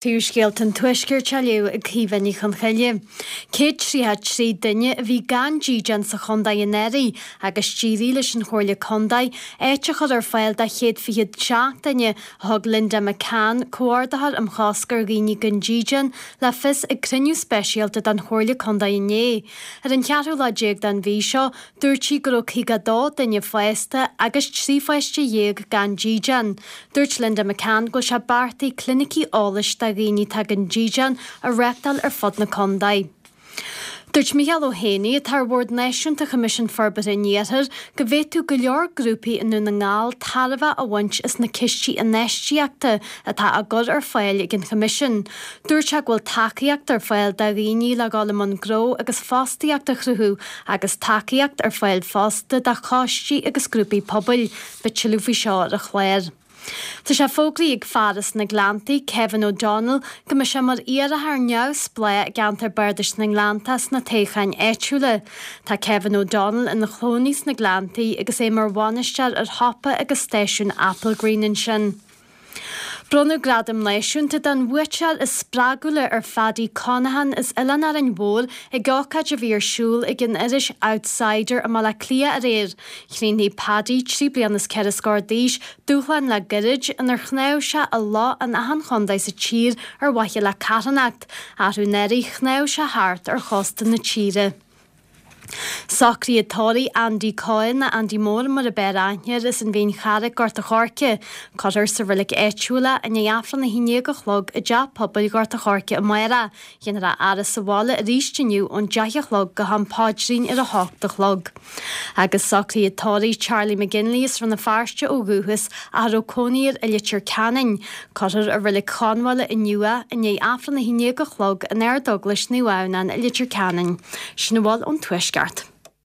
Príomhscéalta an Tuaiscirt á léamh ag Caoimhe Ní Chonchoille. 133 duine a bhí gan dídean sa chontae anuraidh agus d'éirigh leis an Chomhairle Contae áit a chur ar fáil do 127 duine, a thug Linda McCann, Comhordaitheoir um Chosc ar Dhaoine gan Dídean, le fios ag cruinniú speisialta den Chomhairle Contae inné. Ar an cheathrú lá déag den mhí seo, Dúirt sí go raibh 52 duine fásta agus 13 pháiste gan dídean. Dúirt Linda McCann go bhfuil sé beartaithe clinicí eolais do dhaoine atá gan dídean a reáchtáil ar fud na contae. Dúirt Micheál Ó hÉanaí, atá ar Bhord Náisiúnta Choimisiún Forbartha an Iarthair, go bhféadfadh go leor grúpaí i nDún na nGall tairbhe a bhaint as na cistí infheistíochta atá á gcur ar fáil ag an Choimisiún. Dúirt sé go bhfuil tacaíocht ar fáil do dhaoine le dhul i mbun gnó agus fostaíocht a chruthú agus tacaíocht ar fáil fosta do choistí agus grúpaí pobail. Beidh tuilleadh faoi seo ar an chlár. Tá sé fógraithe ag fear as na Gleanntaí, Kevin O'Donnell, go mbeidh sé mar iarrthóir neamhspleách i gceantar Bardais na nGleanntach sna toghcháin áitiúla. Tá Kevin O'Donnell ina chónaí sna Gleanntaí agus é mar bhainisteoir ar shiopa agus stáisiún Applegreen ansin. Bronnadh Gradam Náisiúnta don bhuaiteoir is spreagúla ar Phaddy Conaghan as Oileán Árainn Mhór ag ócáid a bhí ar siúl ag an iris Outsider i mBaile Átha Cliath aréir. Chríochnaigh Paddy, 3 bliana is 4 scór d'aois, dúshlán le gairid inar shnámh sé i loch in achan chontae sa tír ar mhaithe le carthanacht. Arú anuraidh shnámh sé thart ar chósta na tíre. Socruithe tórraimh Andy Coyle, nó Andy Mór mar ab fhearr aithne air, as an Mhín Charraic, Gort a' Choirce. Cuirfear sa reilig áitiúil é i ndiaidh Aifreann 11 a chlog i dTeach Pobail Ghort a' Choirce amárach. Dhéanfar a fhaire sa bhaile arís inniu ón 10 a chlog go ham paidrín ar 8 a chlog. Agus socruithe tórraimh Charlie McGinley as Rann na Feirste ó dhúchas ach a raibh cónaí air i Leitir Ceanainn. Cuirfear i Reilig Chonbháile inniu é i ndiaidh Aifreann 11 a chlog in Ardeaglais Naomh Adhamhnán i Leitir Ceanainn. Sin a bhfuil ón Tuaisceart.